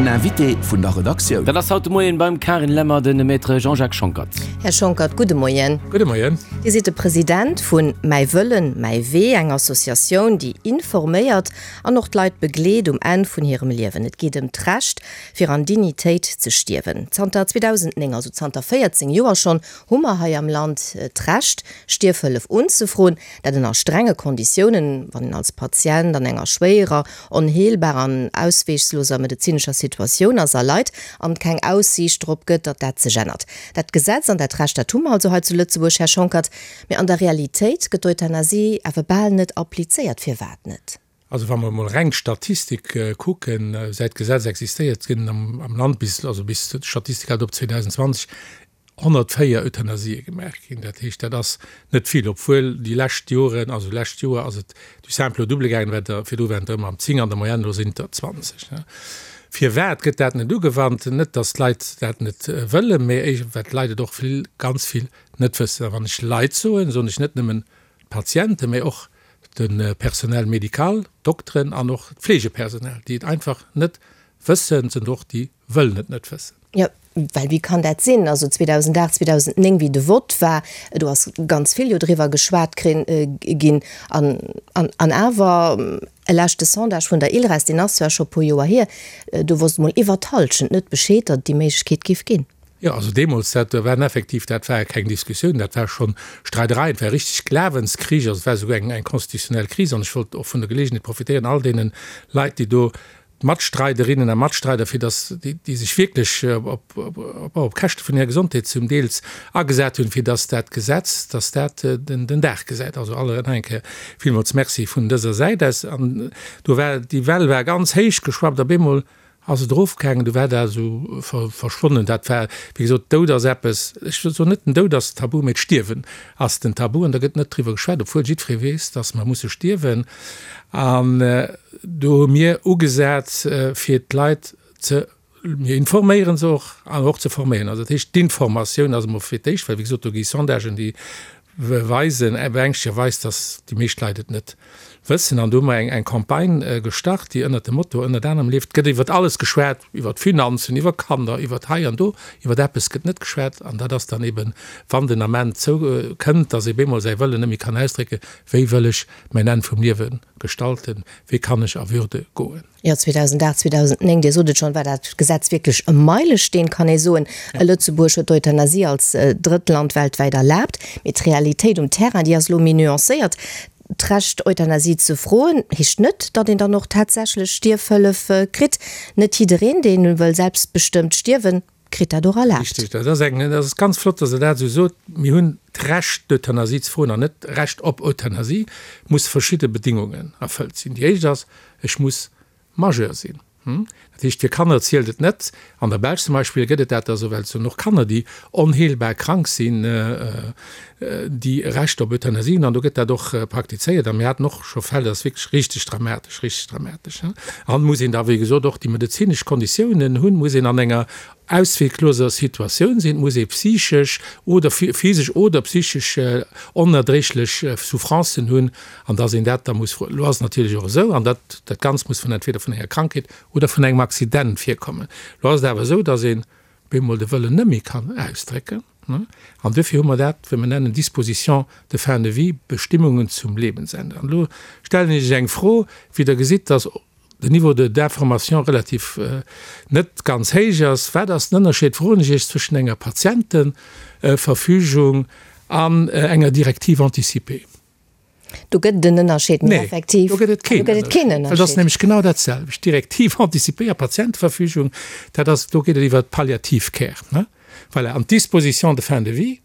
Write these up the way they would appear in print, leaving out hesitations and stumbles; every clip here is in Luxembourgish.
Den Invité vun der Redaktioun. Dat ass haut de Moien beim Carine Lemmer de Maître Jean-Jacques Schonckert. Här Schonckert, gudde Moien. Gudde Moien. Dir sidd de President vun Mäi Wëllen, mäi Wee, eng Associatioun, déi informéiert an och d'Leit begleet um Enn vun hirem Liewen. Et geet ëm d'Recht, fir an Dignitéit ze stierwen. Zanter 2009, also zanter 14 Joer schonn, hu mer hei am Land d'Recht, Stierfhëllef unzefroen. Dat ënner strenge Konditiounen, wann een als Patient an enger schwéierer, onheelbarer an ausweegsloser medezinescher Situatioun ass a leit an et keng Aussiicht drop gëtt, datt dat sech ännert. Dat Gesetz an dat Recht, dat hu mer also hei zu Lëtzebuerg, Här Schonckert. Mee an der Realitéit gëtt d'Euthanasie awer bal net applizéiert. Firwat net? Also wa mer emol reng d'Statistik kucken, säit d'Gesetz existéiert, ginn am Land bis, also bis d'Statistik hält op 2020, 104 Euthanasië gemaach ginn. Dat heescht, dat ass net vill, obwuel déi lescht Joren, also lescht Joer ass et du simple au double gaangen, well der virdru waren et der ëmmer am 10 an der Moyenne, elo sinn et der 20. Firwat gëtt dat net ugewannt? Net, datt d'Leit dat net wëllen, mä well d'Leit et och vill, ganz vill net wëssen. A wann ech Leit soen, soen ech net nëmmen d'Patienten, mä och de Personnel médical, d'Dokteren an och d'Fleegepersonal, déi et einfach net wëssen, sind och déi wëllen et net wëssen. Jo, well wéi kann dat sinn? Also 2008, 2009, wéi de Vott war, do ass ganz vill jo driwwer geschwat ginn. An, an, an awer, e leschte Sondage vun der ILReS, deen ass zwar scho e puer Joer hier, do wosst emol iwwer d'Hallschent net Bescheed, datt et déi Méiglechkeet géif ginn. Jo, also deemools, dat waren effektiv, dat war keng Diskussioun, dat war schonn Streiderei, et war richtig Glawenskrich, also et war esouguer eng, eng constitutionnel Kris. An ech wollt och vun der Gelegenheet profitéieren, all deene Leit, déi do Matstreiderinnen a Matstreider, fir datt déi, déi sech wierklech op, op, op Käschte vun hirer Gesondheet zum Deels agesat hunn, fir datt dat Gesetz, datt dat den, den Dag gesäit. Also alle nach eng Kéier villmools Merci vun dëser Säit aus. An do war, déi Well war ganz héich geschwappt, op eemol ass et erofgaangen, du war dat esou verschwonnen. Dat war, wéi gesot, Doud ass eppes, ech soen net, den Doud ass tabu, mee d'Stierwen ass den Tabu an da gëtt net driwwer geschwat, obwuel jiddweree weess, dass mer musse stierwen. An do hu mir ugesat, fir d'Leit ze, mir informéiere se och an och ze forméieren. Also dat heescht, d'Informatioun ass emol fir d'éischt, well wéi gesot, do gi Sondagen, déi weisen, beängschtegerweis, dass déi meescht Leit et net wëssen. An do hu mer eng eng Campagne gestart, déi ënnert dem Motto ënnert anerem leeft, Et gëtt iwwert alles geschwat, iwwert Finanzen, iwwer Kanner, iwwert hei an do, iwwert eppes gëtt net geschwat. An dat ass dann eben, wann den Ament zou kënnt, dass ee bemol säi Wëllen net méi kann ausdrécken, Wéi wëll ech mäin Enn vum Liewe gestalten? Wéi kann ech a Würde goen? Jo, 2008, 2009, Dir sot et schonn, war dat Gesetz wierklech e Meilesteen, kann ee soen. Lëtzebuerg huet d'Euthanasie als drëtt Land weltwäit erlaabt. Mee d'Realitéit um Terrain, déi ass elo méi nuancéiert. D'Recht, Euthanasie ze froen, heescht net, datt een dann och tatsächlech Stierfhëllef kritt. Net jiddereen, dee wëll selbstbestëmmt stierwen, kritt dat och erlaabt. Richtig, dat ass eng, dat ass ganz flott, dass Der dat esou sot. Mir hunn d'Recht, d'Euthanasie ze froen an net d'Recht op Euthanasie, muss verschidde Bedingungen erfëllt sinn. Déi éischt ass, Ech muss Majeur sinn. Dat heescht, fir Kanner zielt et net. An der Belsch zum Beispill gëtt et dat da sou, well et sinn och Kanner, déi onheelbar krank sinn, déi e Recht op Euthanasie hunn. An do gëtt dat och praktizéiert. A mir haten och scho Fäll, dat ass wierklech richteg dramatesch, richteg dramatesch. An muss een da, wéi gesot, och déi medezinesch Konditiounen hunn, muss een an enger auswegloser Situatioun sinn, et muss ee psychesch oder physesch oder psychesch onerdréiglech Souffrancen hunn, an dass een dat da muss froen. Elo ass et natierlech och esou, an dat dat Ganzt muss vun entweder vun enger Krankheet oder vun engem Accident virkommen, elo ass et awer esou, dass een bemol de Wëllen net méi kann ausdrécken, an duerfir hu mer dat, wat mer nennen Dispositions de fin de vie, Bestimmungen zum Lebensende. An elo stellen ech Iech eng Fro, wéi Der gesitt, dass den Niveau de d'information relativ net ganz héich ass. Wat ass den Ënnerscheed, froen ech Iech, zwëschen enger Patientenverfügung an enger Directive anticipée? Do gëtt et en Ënnerscheed, mee effektiv. Nee, do gëtt et keen Ënnerscheed. Well et ass nämlech genau dat selwecht. Directive anticipée a Patientenverfügung, dat ass, do geet et iwwer d'Palliative Care, ne? Voilà. An d'Disposition de fin de vie,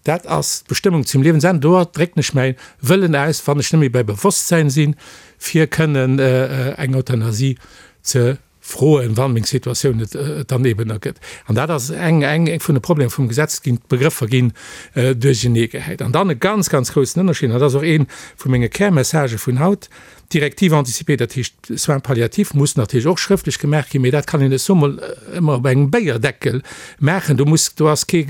dat ass d'Bestëmmung zum Liewensenn. Do drécken ech mäi Wëllen aus, wann ech net méi bei Bewosstsäin sinn, fir kënnen eng Euthanasie ze froen, wann meng Situatioun et dann eben ergëtt. An dat ass eng eng vun de Problemer vum Gesetz ginn, d'Begrëffer ginn duercheneegehäit. An dann e ganz, ganz groussen Ënnerscheed, an dat ass och ee vu menge Kärmessagë vun haut. D'Directive anticipée, dat heescht Soins palliatifs, muss natierlech och schrëftlech gemaach ginn, mee dat kann een net soe mol ëmmer op engem Béierdeckel maachen. Do muss, do ass kee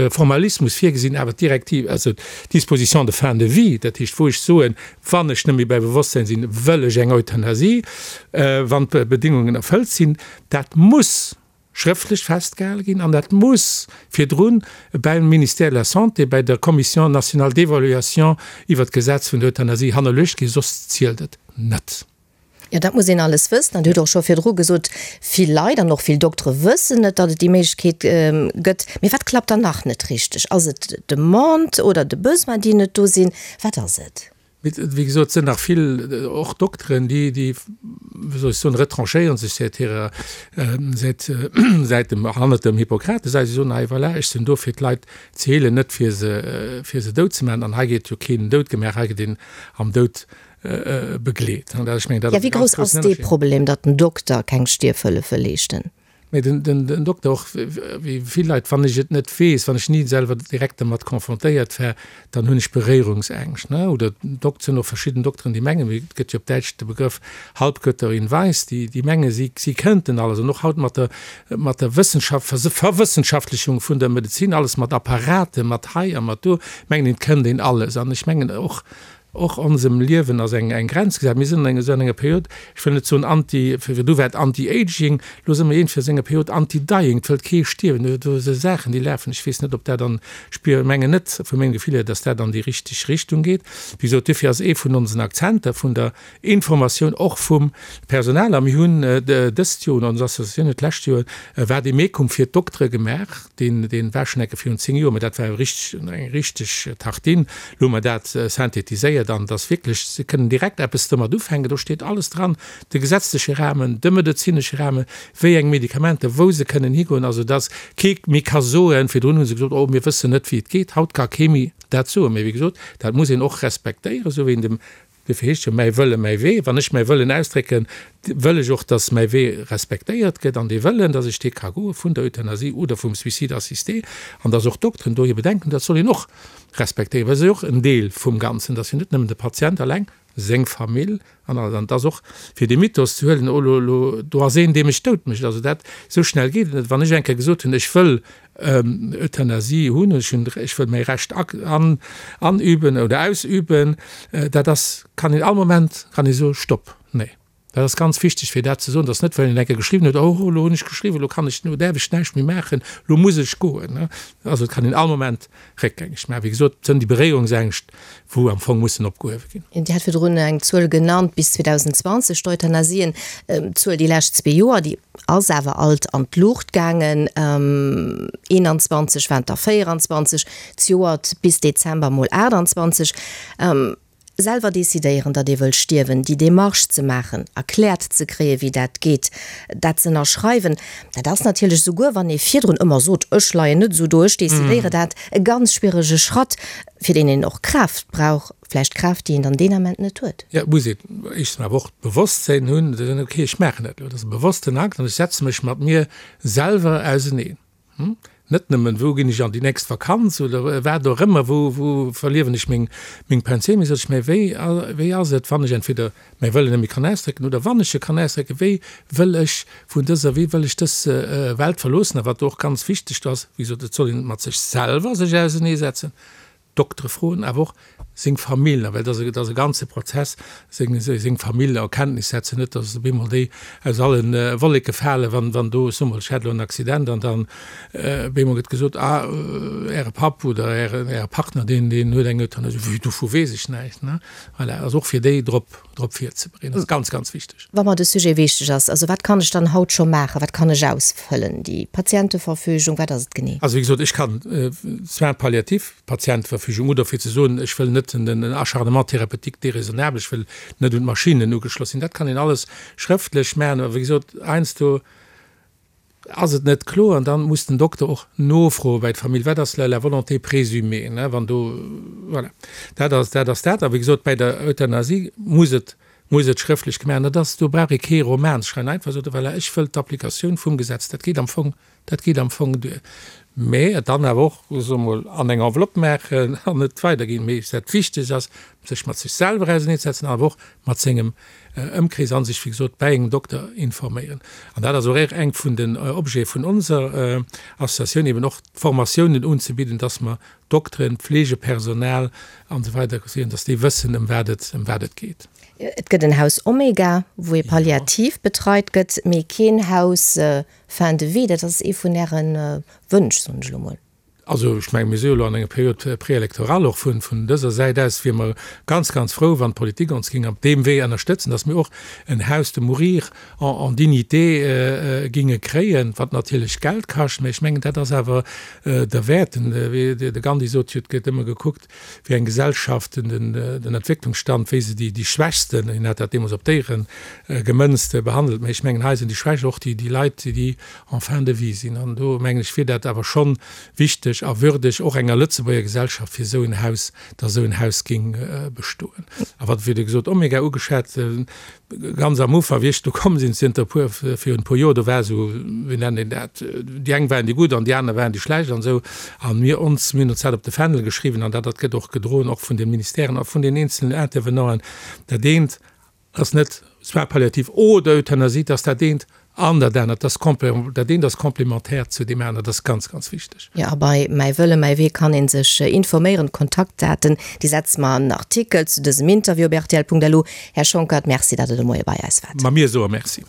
Formalismus virgesinn. Awer d'Directive, also d'Disposition de fin de vie, dat heescht wou ech soen, wann ech net méi bei Bewosstsein sinn, wëll ech eng Euthanasie, wann d'Bedingungen erfëllt sinn, dat muss schrëftlech festgehale ginn an dat muss virdrun beim Ministère de la Santé, bei der Commission nationale d'évaluation iwwert d'Gesetz vun der Euthanasie hannerluecht ginn, soss zielt et net. Jo, dat muss een alles wëssen. An Dir hutt och scho virdru gesot, vill Leit an och vill Doktere wëssen net, datt et déi Méiglechkeet gëtt. Mee wat klappt dann nach net richteg? Ass et d'Demande oder de Besoin, déi net do sinn? Wat ass et? Mee wéi gesot, et sinn nach vill, och Dokteren, déi, déi, wéi soll ech soen, retranchéiere sech säit hirer, säit, säit dem, hannert dem Hippokrates. Si soen, hei voilà, ech sinn do fir d'Leit ze heelen, net fir se, fir se dout ze maachen. An hei gétt jo keen dout gemaach, hei gëtt een am Doud begleet. An dat, ech mengen, dat ass e ganz groussen Ënnerscheed. Ja, wéi grouss ass dee Problem, datt den Dokter keng Stierfhëllefe leeschten? Mee den Dokter och, wéi vill Leit, wann ech et net weess, wann ech ni selwer direkt dermat confrontéiert war, dann hunn ech Beréierungsängscht. Oder et sinn och verschidden Dokteren, déi mengen, et gëtt jo op Däitsch de Begrëff Halbgötter in Weiß, déi menge si kënnten alles. An och haut mat der mat der Wëssenschaft, Verwëssenschaftlichung vun der Medezin, alles mat Apparaten, mat hei a mat do, mengen een, et kënnt een alles. An ech mengen och, Och onsem Liewen ass eng Grenz gesat. Mir sinn an esou enger Period, ech wëll net soen anti, virdu war et anti-aging, elo si mer iergendwéi a sou enger Period anti-dying, et wëllt kee stierwen. Do si Saachen, déi lafen, ech weess net, ob dat an, ech spier, mengen net vu mengem Gefill hier, datt dat an déi richteg Richtung geet. Wéi gesot, duerfir ass ee vun onsen Akzenter vun der Informatioun och vum Personal, a mir hunn dëst Joer, oder ons Associatioun huet d'lescht Joer e Vademecum fir d'Doktere gemaach, Deen, deen war schon enke virun 10 Joer, mä dat war richteg, eng richteg Tartine. Lo hu mer dat synthetiséiert an et ass wierklech, se kënnen direkt eppes domat ufänken. Do steet alles dran, de gesetzleche Rahmen, de medezinesche Rahmen, wéi eng Medikamenter, wou se kënnen higoen, also dass kee méi ka soen, virdrun hu se gesot, oh mir wëssen net wéi et geet, haut ka kee méi dat soen. Mä wéi gesot, dat muss een och respektéieren, esou wéi een dem Duerfir heescht jo mäi Wëlle, mäi Wee. Wann ech mäi Wëllen ausdrécken, wëll ech och, dass mäi Wee respektéiert gëtt an dee Wëllen, dass ech dee ka goe vun der Euthanasie oder vum Suicide assisté an dass och d'Dokteren do hir Bedenken hunn, dat soll een och respektéieren, well se ass jo och en Deel vum Ganzen, dass jo net nëmmen de Patient eleng, seng Famill an alles. An et ass och, fir dee Mythos ze huelen, oh lo, lo, do ass een, dee mech dout mécht. Also dat, esou schnell geet et net. Wann ech eng Kéier gesot hunn, ech wëll Euthanasie hunn, ech hunn, ech wëll mäi Recht anüben oder ausüben, dat ass, kann een all Moment kann ee soe Stopp, nee. Dat ass ganz wichteg fir dat ze soen, dass net well een eng Kéier geschriwwen huet, oh elo hunn ech geschriwwen, elo kann ech, elo däerf ech näischt méi maachen, elo muss ech goen. Also et kann een all Moment réckgängeg maachen. Wéi gesot, et sënn déi Beréierungsängscht, wou am Fong mussen opgehuewe ginn. Dir hat virdrun eng Zuel genannt, bis 2020 d'Euthanasien, d'Zuel déi lescht zwee Joer, déi ass awer alt an d'Luucht gaangen, 21 waren et der 24, zejoert bis Dezember mol 28. Selwer decidéieren, datt ee wëll stierwen, déi Demarche ze maachen, erkläert ze kréien, wéi dat geet, dat ze ënnerschreiwen, dat ass natierlech, souguer wann ee virdrun ëmmer sot, ech leien net esou do, ech decidéiere dat, e ganz schwierege Schratt, fir deen een och Kraaft brauch, vläicht Kraaft, déi een dann deen Ament net huet. Jo, et muss een éischtens awer och d'Bewosstsinn hunn, ze soen, okay, ech maachen dat elo, dat ass e bewossten Akt an ech setze mech mat mir selwer auseneen. Net nëmmen, wou ginn ech an déi nächst Vakanz oder wat och ëmmer, wou, wou verliewen ech meng, meng Pensioun, mee sot ech, mä wéi, wéi ass et, wann ech entweder mäi Wëllen net méi kann ausdrécken oder wann ech e kann ausdrécken, wéi wëll ech vun dëser, wéi wëll ech dës Welt verloossen? A wat do och ganz wichteg ass, wéi gesot, et soll een mat sech selwer sech auseneesetzen, Doktere froen, awer och seng Famill, well dat ass e ganze Prozess, seng seng Famill a Kenntnis setzen, net datt op eemol déi aus alle Wolleke falen, wann wann do, ech soe mol, ech hat elo en Accident an dann op eemol gëtt gesot, ah Äre Papp oder Äre Äre Partner, deen deen huet eng Euthanasie. Wéi, dovu weess ech näischt, ne? Voilà, also och fir déi drop drop virzebereeden, ass ganz, ganz wichteg. Wa mer de Sujet wichteg ass, also wat kann ech dann haut scho maachen, wat kann ech ausfëllen, déi Patienteverfügung, wat ass et genee? Also wéi gesot, ech kann Soins palliatifs, Patienteverfügung, oder fir ze soen, ech wëll net den Acharnement thérapeutique déraisonnable, ech wëll net un d'Maschinnen ugeschloss sinn, dat kann een alles schrëftlech maachen. Awer wéi gesot, heiansdo Ass et net kloer, an dann muss den Dokter och nofroe bei d'Famill, wat ass la volonté présumée, ne, wann do, voilà, dat ass, dat ass dat. A wéi gesot, bei der Euthanasie muss et, muss et schrëftlech gemaach ginn. Dat ass, do brauch ee kee Roman ze schreiwen, einfach soe, voilà, ech wëll d'Applikatioun vum Gesetz, dat geet am Fong, dat geet am Fong duer. Mä et dann awer och, soe mer mol, an eng Enveloppe maachen an et weiderginn. Mee dat Wichtegst ass, sech mat sech selwer auserneezesetzen, awer och mat sengem Ëmkrees a sech, wéi gesot, bäi engem Dokter informéieren. An dat ass och eng vun den Objete vun onser Associatioun, eben och Formatiounen unzebidden, dass mer Dokteren, Pflegepersonal an esou weider kréien, dass déi wëssen, ëm wat et, ëm wat et geet. Et gëtt en Haus Omega, wou ee palliativ betreit gëtt, mee keen Haus Fin de vie. Dat ass ee vun Äre Wënsch, soen ech elo mol. Also ech mengen, mir si jo elo an enger Période préélectorale. Och vun dëser Säit aus wiere mer ganz, ganz frou, wann d'Politik ons géing op deem Wee ënnerstëtzen, dass mir och en Haus de mourir en dignité géinge kréien, wat natierlech Geld kascht. Mä ech mengen, dat ass awer derwäert. De Gandhi sot jo, et gëtt ëmmer gekuckt, wéi eng Gesellschaft den Entwécklungsstand, wéi se déi Schwächsten, hien hat dat deemools op Déiere gemënzt, behandelt. Mä ech mengen, hei sinn déi Schwächst och déi Leit, déi en fin de vie sinn. An do, mengen ech, wier dat awer schonn wichteg a würdeg och enger Lëtzebuerger Gesellschaft, fir esou en Haus, datt esou en Haus géing bestoen. A wat, wéi Der gesot, Omega ugeschwat, ganz am Ufank, wéi ech do komm sinn, zënter e puer, virun e puer Joer, do war esou, wéi nennt een dat, déi eng waren déi gutt an déi aner waren déi schlecht an esou. A mir ons, mir hunn ons dat op de Fändel geschriwwen an dat, dat gëtt och gedroen, och vun de Ministèren a vun den eenzelnen Intervenanten, dat eent ass net Soins palliatifs oder Euthanasie, dat ass dat eent an dat anert, dat ass dat eent ass complémentaire zu deem aneren, dat ass ganz, ganz wichteg. Jo, a bei Mäi Wëlle, mäi Wee kann ee sech informéieren. D'Kontaktdaten, déi setze mer an den Artikel zu dësem Interview op rtl.lu. Här Schonckert, Merci, datt Der de Moie bei eis waart. Ma mir soe Merci.